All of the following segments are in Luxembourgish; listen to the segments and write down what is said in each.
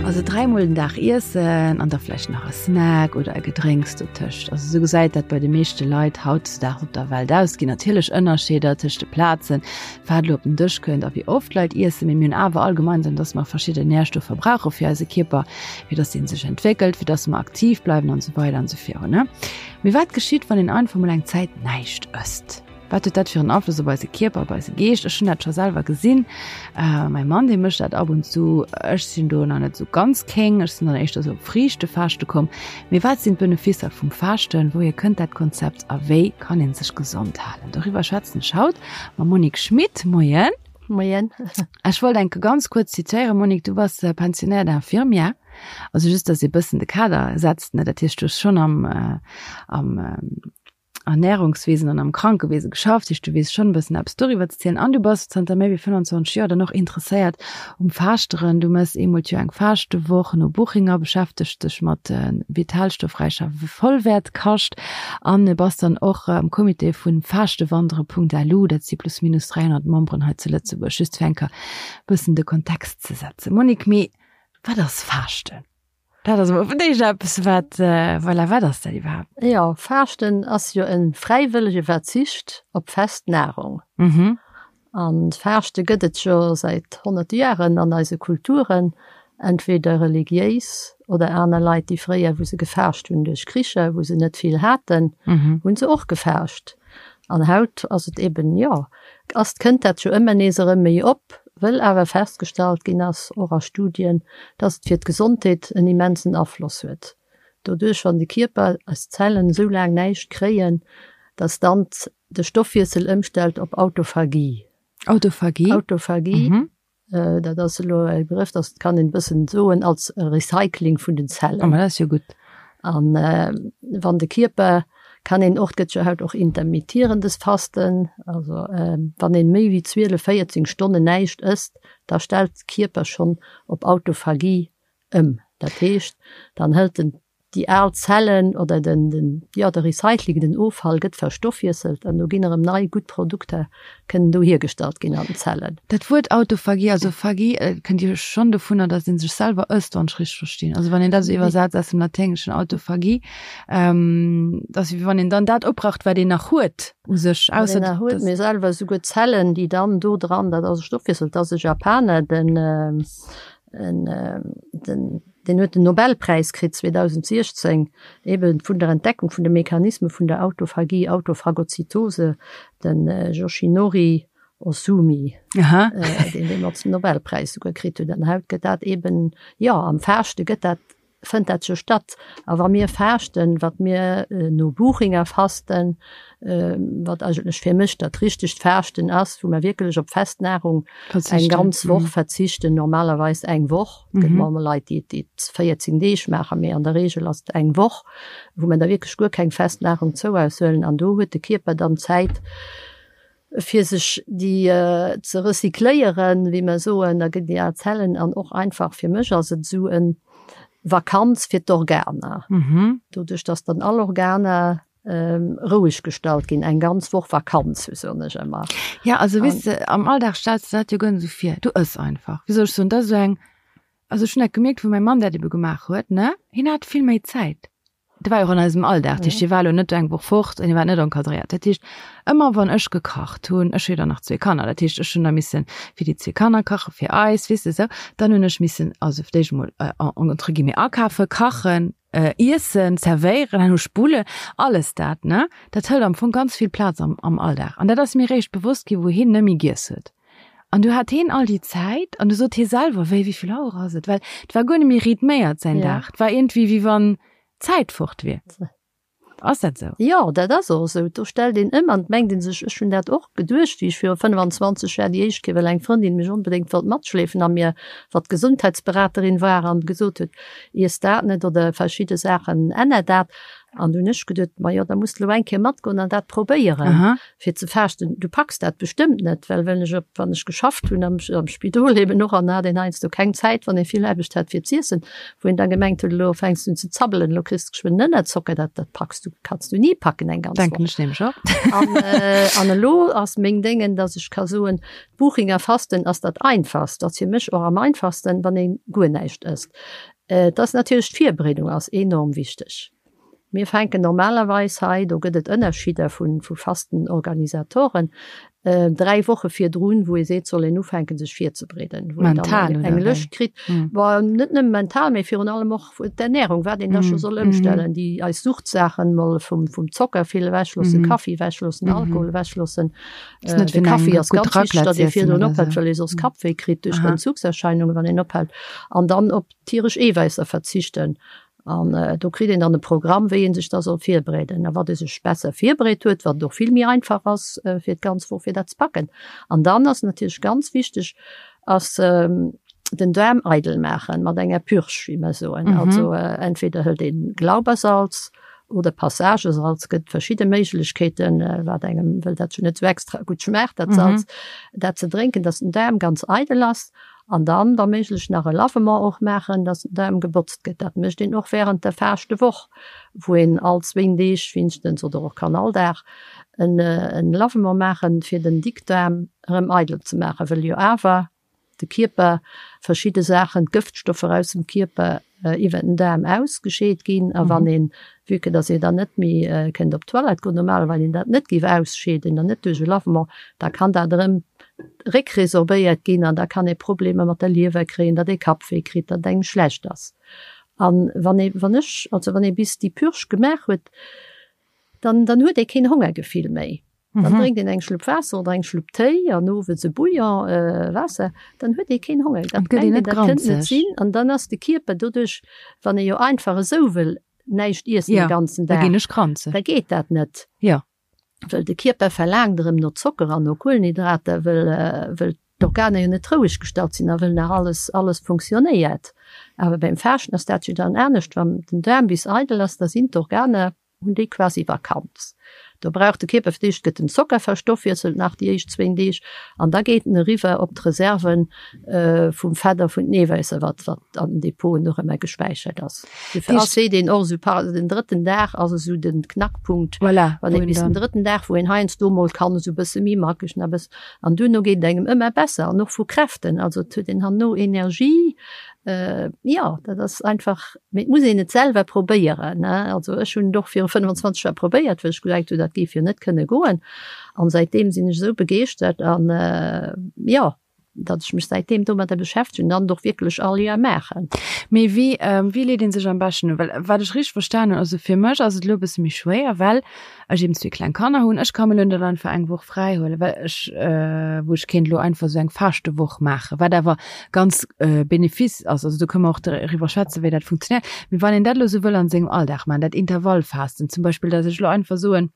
Also dräimol den Dag iessen an da vläicht nach e Snack oder e Gedrénks dotëscht. Also esou gesäit dat bei de meeschte Leit hautdesdaags op der Welt aus. Et ginn natierlech Ënnerscheeder tëscht de Plazen, wat elo op den Dësch kënnt a wéi oft Leit iessen, mee mir hunn awer all gemeinsam, dass mer verschidden Närstoffer brauche fir eise Kierper, fir dass dee sech entwéckelt, fir dass mer aktiv bleiwen an esou weider an esou virun. Mee wat geschitt, wann een einfach mol eng Zäit näischt ësst? Wat huet dat fir en Afloss op eise Kierper, op eise Geescht? Ech hunn dat scho selwer gesinn. Äh, mäi Mann, dee mécht dat ab und zu. Ech sinn do nach net sou ganz kéng. Ech sinn dann éischter sou op Friichtefaaschte komm. Mee wat sinn d'Beneficer vum Faaschten? Wouhier kënnt dat Konzept a wéi kann ee sech gesond halen? Doriwwer schwätzen ech haut mam Monique Schmit. Moien. Moien. Ech wollt enke ganz kuerz zitéieren, Monique, du bass Pensionnaire d'infirmière. Also just, dass ee bëssen de Kader setzt, ne? Dat heescht, du hues schonn am, am Ernährungswesen an am Krankewese geschafft, heescht du weess schonn e bëssen eppes doriwwer ze zielen an du bass zanter méi wéi 25 Joer dann och interesséiert um Faaschteren. Du mëss eemol d'Joer eng Faashtewoch no Buchinger, beschäftegs dech mat vitalstoffräicher Vollwäertkascht an bass dann och am Comité vun Faaschtewandere.lu, dat si plus minus 300 Memberen hei zu Lëtzebuerg, just fir eng Kéier bëssen de Kontext ze setzen. Monique, mee wat ass Faaschten? Dat ass emol fir d'éischt eppes, wat, voilà, wat ass dat iwwerhaapt? Jo, Faaschten ass jo e fräiwëllege Verzicht op fest Nahrung. Mhm. An Faaschte gëtt et jo säit honnerte Jaren an eise Kulturen, entweder religiéis oder aner Leit, déi fréier, wou se gefaascht hunn duerch Kricher, wou se net vill haten, hunn se och gefaascht. An haut ass et eben, jo, ass, kënnt dat jo ëmmer nees erëm méi op, wëll awer festgestallt ginn ass, och a Studien, dass et fir d'Gesondheet en immensen Afloss huet. Doduerch, wann de Kierper, eis Zellen esou laang näischt kréien, dass dann de Stoffwiessel ëmstellt op Autophagie. Autophagie? Autophagie. Dat ass elo e Begrëff, dat kann een e bëssen soen als Recycling vun den Zellen. Oh, ma dat ass jo gutt. An wann de Kierper, kann een och, et gëtt jo haut och intermittierendes Fasten, also wann een méi wéi 12, 14 Stonnen näischt ësst, da stellt de Kierper schonn op Autophagie ëm. Dat heescht, dann hëlt en déi al Zellen oder den, den, jo, de Recycling, den Offall gëtt verstoffwiesselt an do ginn erëm nei gutt Produkter kënnen do hiergestallt ginn an den Zellen. Dat Wuert Autophagie, also Phagie, kënnt jo schonn dovunner, datt ee sech selwer ësst, wann ech richteg verstinn. Also wann een dat esou iwwersetzt aus dem Laténgeschen Autophagie, dat ass wéi wann een dann dat opbraucht, wat een nach huet u sech, ausser. Wat een nach huet, mee selwer esouguer d'Zellen, déi dann do dran, dat ass e Stoffwiessel, dat ass e Japaner, den, En, den, deen huet den Nobelpräis kritt 2016, eben vun der Entdeckung vun de Mechanisme vun der Autophagie, Autophagozytose, den Yoshinori Ohsumi, Aha. deen deemools den Nobelpräis souguer kritt huet. An haut gëtt dat eben, jo, am Faaschte gëtt dat fënnt dat jo statt. A wa mir faaschten, wat mir no Buchinger fasten, wat eigentlech fir mech dat richtegt Faaschten ass, wou mer wierklech op fest Nahrung eng ganz Woch verzichten, normalerweis eng Woch, et gëtt mol Leit, déi et 14 Deeg maachen, mee an der Reegel ass et eng Woch, wou mer da wierklech guer keng fest Nahrung zou eis huelen. An do huet de Kierper dann Zäit, fir sech déi ze recycléieren, wéi mer soen, da ginn déi al Zellen an och einfach fir mech ass et esou en Vakanz fir d'Organer, doduerch dass dann all Organer roueg gestallt ginn, eng ganz Woch Vakanz, sou soen ech ëmmer. Ja, also weess de, am Alldag stells de dat jo guer net esou vir, du ëss einfach, wéi soll ech soen, dat ass esou eng, also ech hunn dat gemierkt, wou mäi Mann dat ebe gemaach huet, ne, hien hat vill méi Zäit. Dat war jo och an eisem Alldag. Dat heescht, hie war elo net eng Woch fort an hie war net encadréiert. Dat heescht, ëmmer wann ech gekacht hunn, ech hu jo dann nach zwee Kanner, dat heescht, ech hunn da misse fir déi zwee Kanner kachen, fir eis, weess de esou. Dann hunn ech missen, also fir d'éischt emol entre guillemets akafen, kachen, iessen, zerwéieren, herno spullen, alles dat, ne? Dat hëlt am Fong ganz vill Plaz am am Alldag. An dat ass mir eréischt bewosst ginn, wou hien net méi giess huet. An du hat heen all déi Zäit an du sot hie selwer, wéi, wéi vill Auer ass et? Well et war guer net méi rhythméiert säin Dag. Et war iergendwéi, wéi wann d'Zäit fort wier. Ass dat esou? Jo, dat ass och esou. Do stellt een ëm an et mengt ee sech, ech hunn dat och geduecht, wéi ech viru 25 Jar déi éischt Kéier, well eng Frëndin mech onbedéngt wollt matschleefen a mir, wat Gesundheitsberaterin war an gesot huet, iess dat net oder verschidde Saachen, änner dat. An du hunn ech geduet, ma jo, da muss de lo eng Kéier matgoen an dat probéieren, fir ze faaschten. Du packs dat bestëmmt net, well wenn ech op, wann ech geschafft hunn am, am Spidol eben och, an da hat een heiansdo keng Zäit, wann ee vill Aarbecht hat, fir z'iessen, wou een da gemengt huet, elo fänks du un ze zabbelen, elo kriss de geschwënn Ënnerzocker, dat, dat packs du, kanns du ni packen eng ganz Denken Woch. ech nämlech och. An, äh, an elo ass meng Déngen, dass ech ka soen, d'Buchinger Fasten ass dat einfachst, ass fir mech och am einfachsten, wann ee guer näischt ësst. Et ass natierlech, d'Virbereedung ass enorm wichteg. Mir fänken normalerweis hei, do gëtt et Ënnerschidder vu Fastenorganisatoren, 3 Woche virdrun, wou ee seet, soll een ufänken sech virzebereeden, wou een dann eng Lëscht kritt, bon net nëmme mental, mee virun allem och d'Ernährung, wat een da scho soll ëmstellen, déi eis Suchtsaachen mol vum Zocker vill ewechloossen, Kaffi ewechloossen, Alkohol ewechloossen. De Kaffi ass ganz wichteg, datt ee virdrun ophält, well ee soss Kappwéi kritt duerch d'Entzugserscheinungen, wann een ophält. An dann op tieresch Eewäisser verzichten. An do kritt een dann e Programm, wéi ee sech da soll virbereeden. A wat ee sech besser virbereet huet, wat et och vill méi einfach ass fir d'ganz Woch fir dat ze packen. An dann ass natierlech ganz wichteg, ass den Daarm eidel maachen mat enger Purge, wéi mer soen. Also entweder hëlt een Glaubersalz oder Passagesalz, gëtt verschidde Méiglechkeeten, wat engem, wëll dat jo net esou extra gutt schmaacht, dat Salz, dat ze drénken, dass den Daarm ganz eidel ass. An dann, wa méiglech, nach e Lavement och maachen, dass den Daarm gebotzt gëtt. Dat mécht een och während der Faashtewoch, wou een all zwéin Deeg wéinstens, oder och kann all Dag, en Lavement maachen, fir den Dickdaarm erëm eidel ze maachen, wëll jo awer de Kierper verschidde Saachen, d'Gëftstoffer aus dem Kierper iwwer den Daarm ausgescheet ginn. A wann een, vue que dass ee dann net méi kënnt op d'Toilette goen, normal, wann een dat net géif ausscheeden an net duerch e Lavement, da kann dat erëm réckresorbéiert ginn an da kann ee Problemer mat der Liewer kréien, datt ee Kappwéi kritt, datt engem schlecht ass. An wann ee, wann ech, also wann ee bis déi Purge gemaach huet, dann, dann huet ee keen Hongergefill méi. Dann drénkt een eng Schlupp Waasser oder eng Schlupp Téi an owes e Bouillon Waasser, dann huet ee keen Honger. Dat mengt een, dat kënnt net sinn. An dann ass de Kierper doduerch, wann ee jo einfach esou wëll näischt iessen de ganzen Dag, da geet dat net. Wëll de Kierper verlaangt erëm no Zocker an no Kuelenhydrater, wëll wëll d'Organer jo net roueg gestallt sinn a wëll nach alles alles funktionéiert. Awer beim Faaschten ass dat jo dann anescht, wann den Daarm bis eidel ass, da sinn d'Organer hunn déi quasi Vakanz. Do brauch de Kierper fir d'éischt gëtt den Zocker verstoffwiesselt nach déi éischt zwéin Deeg an da geet en eriwwer op d'Reserven vum Fett a vun den Eewäisser, wat wat an den Depoten och ëmmer gespäichert ass. Dofir ass seet een och esou par den drëtten Dag ass esou den Knackpunkt, voilà, wann ee bis den drëtten Dag, wou een heiansdo mol kann esou bësse méi mackeg nach bëssen an duerno geet et engem ëmmer besser an och vu Kräften, also et huet een herno Energie, jo dat ass einfach. Mee et muss een et selwer probéieren, ne? Also ech hunn et och viru 25 Joer probéiert, well ech gedenkt hunn, dat géif jo net kënne goen. An säitdeem sinn ech esou begeeschtert an, jo, datt ech mech säitdeem domadder beschäftegen an et och wierklech all Joer maachen. Mee wéi, wéi leet ee sech am beschten un? Well wat ech richteg verstan hunn, also fir mech ass et elo e bësse méi schwéier, well ech eben zwee kleng Kanner hunn, ech ka mir elo net einfach eng Woch fräi huelen, well ech, wou ech kéint elo einfach esou eng Faaschtewoch maachen, wat awer ganz bénéfice ass, also do kënne mer och driwwer schwätzen, wéi dat funktionéiert. Mee wann een dat elo esou wëll an sengem Alldag maachen, dat Intervallfasten zum Beispill, datt ech elo einfach soen,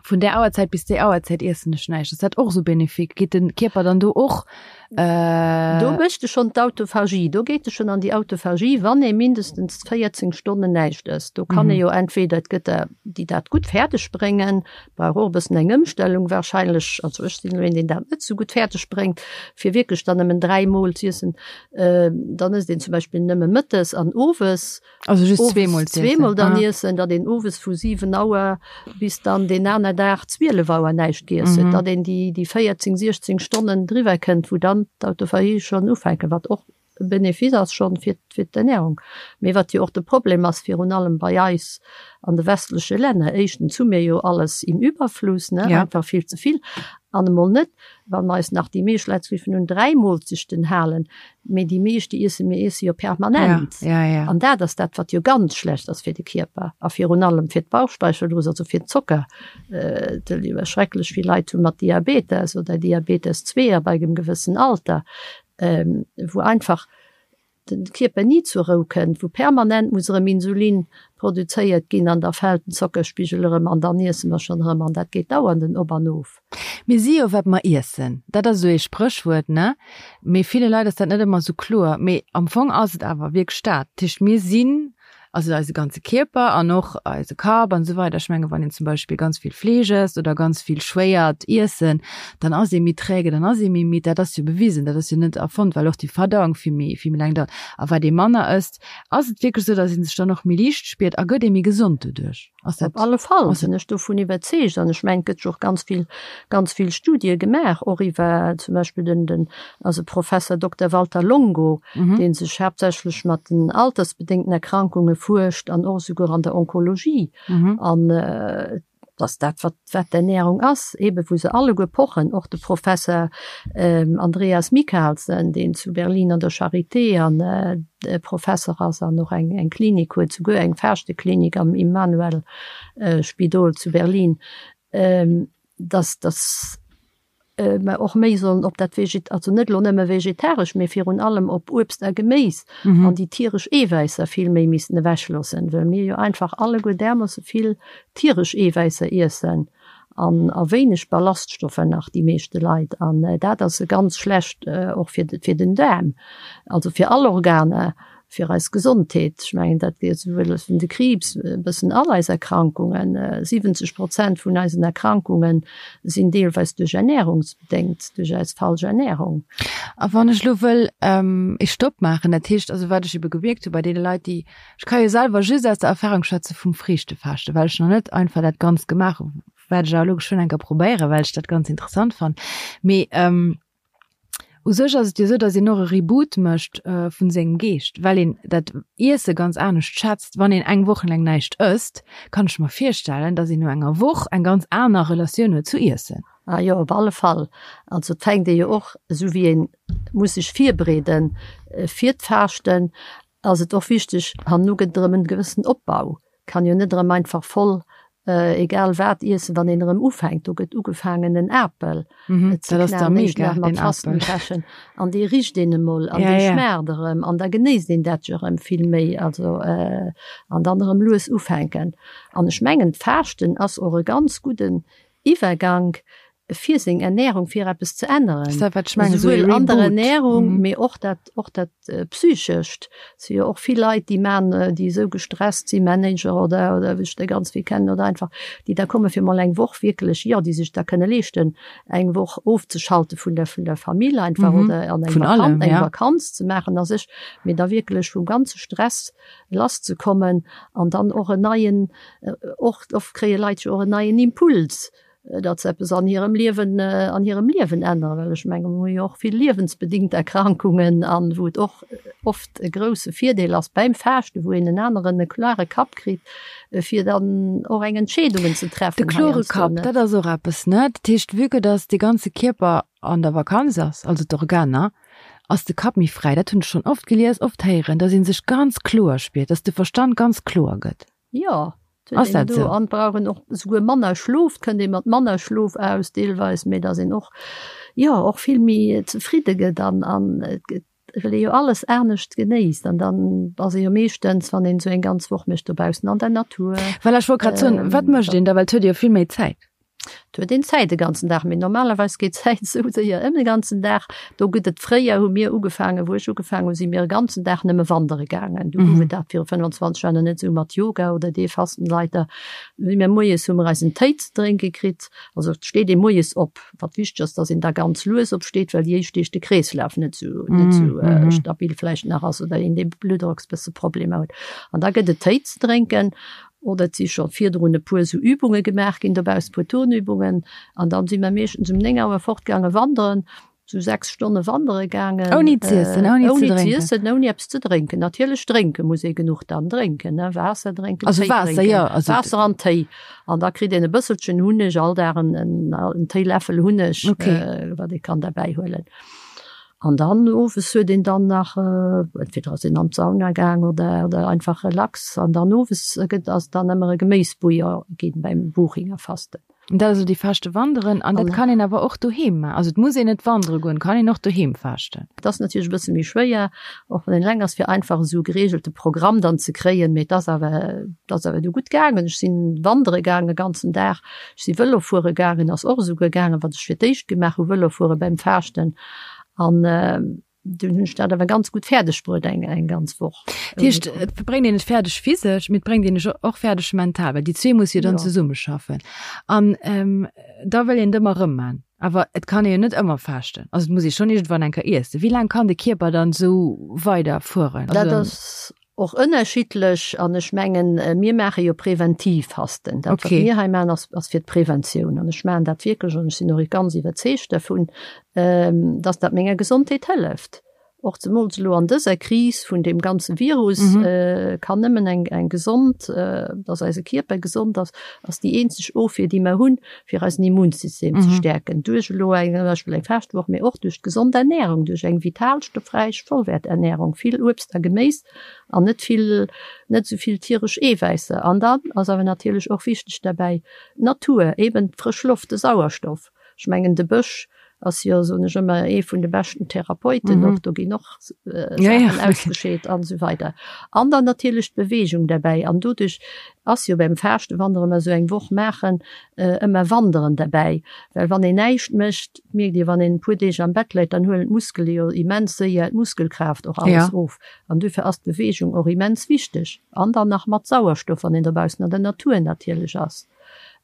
vun där Auerzäit bis déi Auerzäit iessen ech näischt, ass dat och esou bénéfique? Geet de Kierper dann do och Do mécht e schonn d'Autophagie, do geet e schonn an déi Autophagie, wann ee mindestens 14 Stonnen näischt ësst. Do kann ee jo entweder, et gëtt der, déi dat gutt fäerdeg bréngen, brauch och e bëssen eng Ëmstellung warscheinlech, also ech sinn elo een, deen dat net esou gutt fäerdeg bréngt, fir wierklech dann nëmmen 3 Mol z'iessen. Dann ësst een zum Beispill nëmme mëttes an owes. Also just zweemol z'iessen. Zweemol dann iessen, datt een owes vu 7 Auer bis dann deen aner Dag 12 Auer näischt giess huet, datt een déi déi 14, 16 Stonnen driwwer kënnt, wou dann d'Autophagie schonn ufänken, wat och e Benefice ass schonn fir fir d'Ernährung. Mee wat jo och de Problem ass, virun allem bei eis an de westleche Länner, éischtens hu mir jo alles im Überfluss, ne, einfach vill ze vill, an emol net, wa mer eis nach déi meescht Leit géifen un 3 Moolzechten halen, Mee déi meescht, déi iessen, mir iesse jo permanent. Ja, ja, ja. An dat ass dat, wat jo ganz schlecht ass fir de Kierper a virun allem fir d'Bauchspeicheldrüs, also fir den Zocker. Et schrecklech vill Leit hu mat Diabetes oder Diabetes 2 ab engem gewëssen Alter, wou einfach de Kierper ni zur Rou kënnt, wou permanent muss erëm Insulin produzéiert ginn an da fält den Zockerspigel erëm an dann iesse mer schonn erëm an dat geet dauernd en Op an Of. Mir si jo wat mer iessen, dat ass esou ee Spréchwuert, ne? Mee ville Leit ass dat net ëmmer esou kloer. Mee am Fong ass et awer wierklech dat. Dat heescht, mir sinn. Also eise ganze Kierper an och eise Kapp an esou weider. Ech menge wann een zum Beispill ganz vill Fleesch ësst oder ganz vill schwéiert Iessen, dann ass ee méi träge, dann ass ee méi midd. Dat ass jo bewisen, dat ass jo net erfonnt, well och déi Verdauung vill méi, vill méi laang dauert. A wat ee manner ësst, ass et wierklech esou, datt ee sech dann och méi liicht spiert a gëtt ee méi gesond doduerch? Ass dat Op alle Fall sinn ech dovun iwwerzeegt an ech mengen, et gëtt jo och ganz vill, ganz vill Studie gemaach, och iwwer zum Beispill den, den also Professor Dokter Walter Longo, dee sech haaptsächlech mat den altersbedéngten Erkrankunge fuerscht an och esouguer an der Onkologie. An dass dat, wat, wat d'Ernährung ass, eebe wou se alleguer pochen, och de Professor Andreas Michalsen, deen zu Berlin an der Charité an Professer ass an och eng Klinik huet, souguer eng Faaschteklinik am Immanuel Spidol zu Berlin, dass dass mer och méi sollen op dat Veget, also net elo nëmme vegetaresch, mee virun allem op Uebst a Geméis an déi tieresch Eewäisser vill méi missten ewechloossen, well mir jo einfach alleguer därmoosse vill tieresch Eewäisser iessen. An a wéineg Ballaststoffer nach, déi meeschte Leit. An dat ass ganz schlecht och fir fir den Daarm, also fir all Organer, fir eis Gesondheet. Ech mengen, dat geet esouwuel vun de Kriibs, e bëssen all eis Erkrankungen. 70 Prozent vun eisen Erkrankunge sinn deelweis duerch Ernährungsbedéngt, duerch eis falsch Ernährung. A wann ech elo wëll ee Stopp maachen, dat heescht also, wat ech ebe gemierkt hu bei deene Leit, déi Ech ka jo selwer just aus der Erfahrung schwätze vum Friichtefaaschten, well ech nach net einfach dat Ganzt gemaach hu, wat ech awer elo geschwënn eng Kéier probéieren, well ech dat ganz interessant fannen. Mee u sech ass et jo esou, datt een och e Reboot mécht vun sengem Geescht, well een dat Iesse ganz anescht schätzt. Wann een eng Woch laang näischt ësst, kann ech mer virstellen, datt een no enger Woch eng ganz aner Relatioun huet zu Iessen. Ah jo, op alle Fall. Also et fänkt ee jo och, esou wéi ee muss sech virbereede fir d'Faaschten, ass et och wichteg, herno gëtt et erëm en gewëssen Opbau, kann jo net erëm einfach voll egal wat iessen, wann een erëm ufänkt. Do gëtt ugefaangen en Apel ze knaen, éischt nach mat Fastenbrechen, an dee richt een emol an dee schmaacht erëm an da genéisst een dat jo erëm vill méi, also an dann erëm lues ufänken. An ech mengen d'Faaschten ass och e ganz gudden Iwwergank fir seng Ernährung, fir eppes ze änneren. Souwuel an der Ernährung, mee och dat, och dat Psychescht. Et si jo och vill Leit, déi man, déi esou gestresst sinn, Manager oder, oder wéi ech der ganz vill kennen, oder einfach, déi da komme fir mol eng Woch wierklech, jo, déi sech da kënne leeschten, eng Woch ofzeschalte vun der, vun der Famill einfach oder an eng Vakanz, eng Vakanz ze maachen a sech, mee da wierklech vum ganze Stress lasszekommen an dann och en neien, och oft kréie Leit jo och en neien Impuls, datt se eppes an hirem Liewen, an hirem Liewen änneren, well ech menge mir hu jo och vill liewensbedingt Erkrankungen an wou et och oft e grousse Virdeel ass beim Faaschten, wou een en aneren, e klare Kapp kritt, fir dann och eng Entscheedungen ze treffen. De klore Kapp, dat ass och eppes, ne? Dat heescht, vue que datt de ganze Kierper an der Vakanz ass, also d'Organer, ass de Kapp méi fräi. Dat hunn ech schonn oft gelies, oft héieren, datt ee sech ganz kloer spiert, datt de Verstand ganz kloer gëtt. Jo, et huet een do an brauch een och esouguer manner Schlof, et kënnt ee mat manner Schlof aus deelweis, mee datt een och, jo, och vill méi zefridde gëtt an an et gëtt, well ee jo alles anescht genéisst an dann ass ee jo meeschtens, wann een esou eng ganz Woch mécht, dobaussen an der Natur. Voilà, ech wollt grad soen, wat mécht een da, well et huet ee jo vill méi Zäit. Et huet een Zäit de ganzen Dag, mee normalerweis geet d'Zäit esou séier ëm de ganzen Dag. Do gëtt et, fréier hu mir ugefaangen, wou ech ugefaangen hu si mir e ganzen Dag nëmme wandere gaangen. Du gouf et dat viru 25 Joer nach net esou mat Yoga oder dee Fastenleiter. Si mir moies hu mir eis en Téi ze drénke kritt. Also et steet ee moies op, wat wichteg ass, datt een da ganz lues opsteet, well déi éischt Deeg de Kreeslaf net esou net esou stabil vläicht nach ass oder een dee Bluttdrocksbësse Problemer huet. An da gëtt et Téi ze drénken. Oder et si scho virdrun e puer esou Übunge gemaach ginn dobaussen, e puer Turnübungen. An dann si mer meeschtens um 9 Auer fortgaange wanderen, esou 6 Stonne wandere gaangen. Ouni z'iessen, ouni ze drénken? Ouni z'iessen, ouni eppes ze drénken. Natierlech drénke muss ee genuch dann drénken, ne, Waasser drénken, Also Téi Waasser, drénken. jo, also. Waasser an Téi. An da kritt een e bësselchen Hunneg, all Dag en, en Téiläffel Hunneg, Okay. wat ee kann derbäi huelen. An dann owes huet een dann nach, entweder ass een an d'Sauna gaang oder oder einfach relax. An dann owes gëtt ass dann ëmmer e Geméisbouillon ginn beim Buchinger Fasten. An dat ass elo déi Faaschte wanderen. An dat kann een awer och doheem maachen. Also et muss een net wandere goen, kann een och doheem faaschten. Et ass natierlech e bësse méi schwéier, och wann een eleng ass, fir einfach esou e gereegelte Programm dann ze kréien. Mee et ass awer, et ass awer du gutt gaangen. Ech sinn wandere gaangen e ganzen Dag. Ech si Vëlo fuere gaangen, ass och esouguer gaangen, wat ech fir d'éischt gemaach hu, Vëlo fuere beim Faaschten. An. Dunn hunn ech dat awer ganz gutt fäerdeg bruet eng eng ganz Woch. Dat heescht, et bréngt een et fäerdeg physesch, mee et bréngt een ech och fäerdeg mental, well déi zwee musse jo dann ja. zesummeschaffen. An ähm, da wëll een et ëmmer erëm man. Awer et kann ee jo net ëmmer faaschten. Also et muss ee schonn iergendwann eng Kéier iessen. Wéi laang kann de Kierper dann esou weider fueren? Dat ass Och ënnerschiddlech an ech mengen, mir maache jo präventiv Fasten. Dat, wat mir hei maachen, ass, ass fir d'Preventioun. An ech maachen dat wierklech an ech sinn och ganz iwwerzeegt dervun, dass dat menger Gesondheet hëlleft. Och zemools elo an dëser Kris vun deem ganze Virus kann nëmmen eng, eng gesond, dass eise Kierper gesond ass, ass déi eenzeg Ofwier, déi mer hunn, fir eisen Immunsystem ze stäerken. Duerch elo eng, zum Beispill eng Faaschtwoch, mee och duerch d'gesond Ernährung, duerch eng vitalstoffräich Vollwäerternährung, vill Uebst a Geméis an net vill, net esou vill tieresch Eewäisser. An dann ass awer natierlech och wichteg derbäi d'Natur, eben d'frësch Loft, de Sauerstoff. Ech mengen de Bësch ass jo, soen ech ëmmer, ee vun de beschten Therapeuten och, do ginn och Saachen ausgescheet an esou weider. An dann natierlech d'Beweegung derbäi. An doduerch ass jo beim Faaschten, wann der ëmmer esou eng Woch maachen, ëmmer Wanderen derbäi. Well wann een näischt mécht, mierkt Dir, wann een e puer Deeg am Bett läit, dann huelen d'Muskele jo immens séier d'Muskelkraaft och alles of. An duerfir ass d'Beweegung och immens wichteg. An dann nach mat Sauerstoff, wann een dobaussen an der Natur natierlech ass.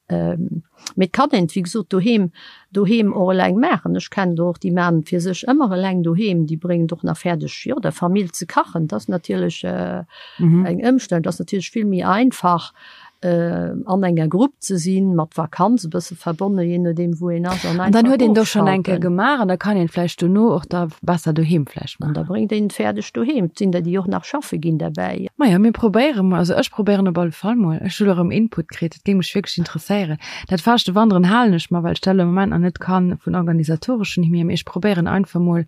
Mee et kann een et wéi gesot doheem, doheem och eleng maachen. Ech kennen der och, déi maachen et fir sech ëmmer eleng doheem. Déi bréngen et och nach fäerdeg, jo, der Famill ze kachen. Dat ass natierlech eng Ëmstellung. Dat ass natierlech vill méi einfach, an enger Grupp ze sinn, mat Vakanz e bësse verbonne, jee nodeem wou een ass, an An dann huet een do schonn eng Kéier gemaach an da kann een vläicht dono och da besser doheem vläicht maachen. An da bréngt een et fäerdeg doheem. Et sinn der, déi och nach schaffe ginn derbäi. Majo, mir probéiere mol, also ech probéieren op alle Fall mol. Ech hu lo erëm Input kritt, dat géing mech wierklech interesséieren. Dat Faaschtewanderen halen ech mer, well ech dat elo am Moment nach net kann vun organisatoreschen hier, mee ech probéieren einfach mol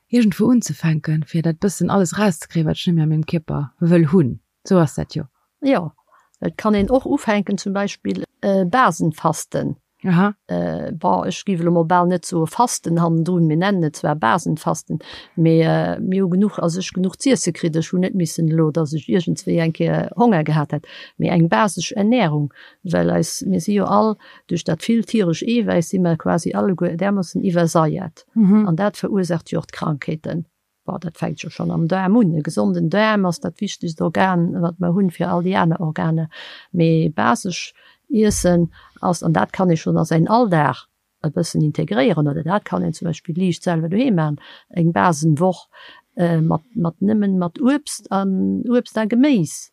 iergendwou unzefänken, fir dat bëssen alles erauszekréien, wat ech net méi a mengem Kierper wëll hunn. Sou ass dat jo. Jo, et kann een och ufänken, zum Beispill Basenfasten. Aha. Bon, ech géif elo mol bal net soe Fasten hannendrun, mir nennen et zwar Basenfasten, mee mir hu genuch, also ech genuch z'iesse kritt, ech hunn net missen elo, datt ech iergendswéi eng Kéier Honger gehat hätt, mee eng basesch Ernährung, well eis, mir si jo all duerch dat vill tieresch Eewäiss si mer quasi alleguer därmoossen iwwersaiert an dat verursaacht jo och d'Krankheeten. Bon, dat fänkt jo schonn am Daarm un. E gesonden Daarm ass dat wichtegst Organ, wat mer hunn, fir all déi aner Organer. Mee basesch Iessen ass, an dat kann ee schonn a säin Alldag e bëssen integréieren, oder dat kann een zum Beispill liicht selwer doheem maachen, eng Basenwoch mat, mat nëmmen mat Uebst an Uebst a Geméis.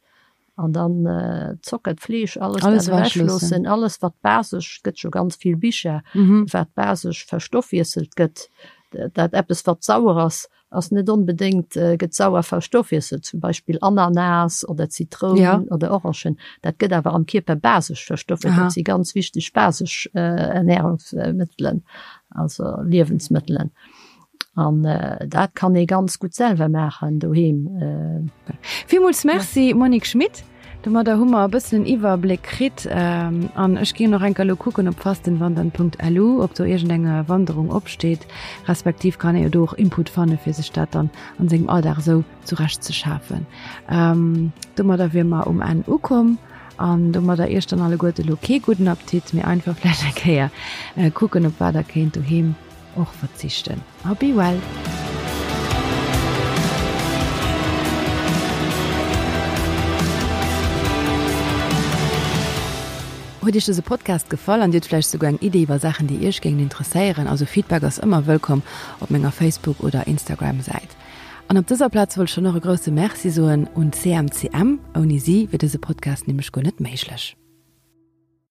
An dann Zocker, d'Fleesch, alles dat ewechloossen, alles wat basesch, et gëtt jo ganz vill Bicher, wat basesch verstoffwiesselt gëtt. Dat eppes wat sauer ass, ass net onbedéngt, gëtt sauer verstoffwiesselt, zum Beispill Ananas oder Zitroun oder Orangen, dat gëtt awer am Kierper basesch verstoffwiesselt. Dat si ganz wichteg basesch Ernährungsmëttelen, also Liewensmëttelen. An dat kann ee ganz gutt selwer maachen doheem. Villmools Merci Monique Schmit. Domadder hu mer e bëssen en Iwwerbléck kritt. An ech ginn och enker elo kucken op fastenwandern.lu, ob do iergendeng Wanderung opsteet. Respektiv kann ee jo do och Input fanne fir sech dat dann an sengem Alldag esou zurecht ze schafen. Domadder wier mer um Enn ukomm. An domadder iech dann alleguerte elo kee gudden Appetit, mee einfach vläicht eng Kéier kucken, op wat der kéint doheem och verzichten. A be well! Huet Iech dëse Podcast gefall an Dir hutt vläicht souguer eng Idee iwwer Saachen déi Iech géingen interesséieren? Also Feedback ass ëmmer wëllkomm op menger Facebook oder Instagram Säit. An op dëser Plaz wollt ech dann och e grousse Merci soen un CMCM, ouni si wier dëse Podcast nämlech guer net méiglech.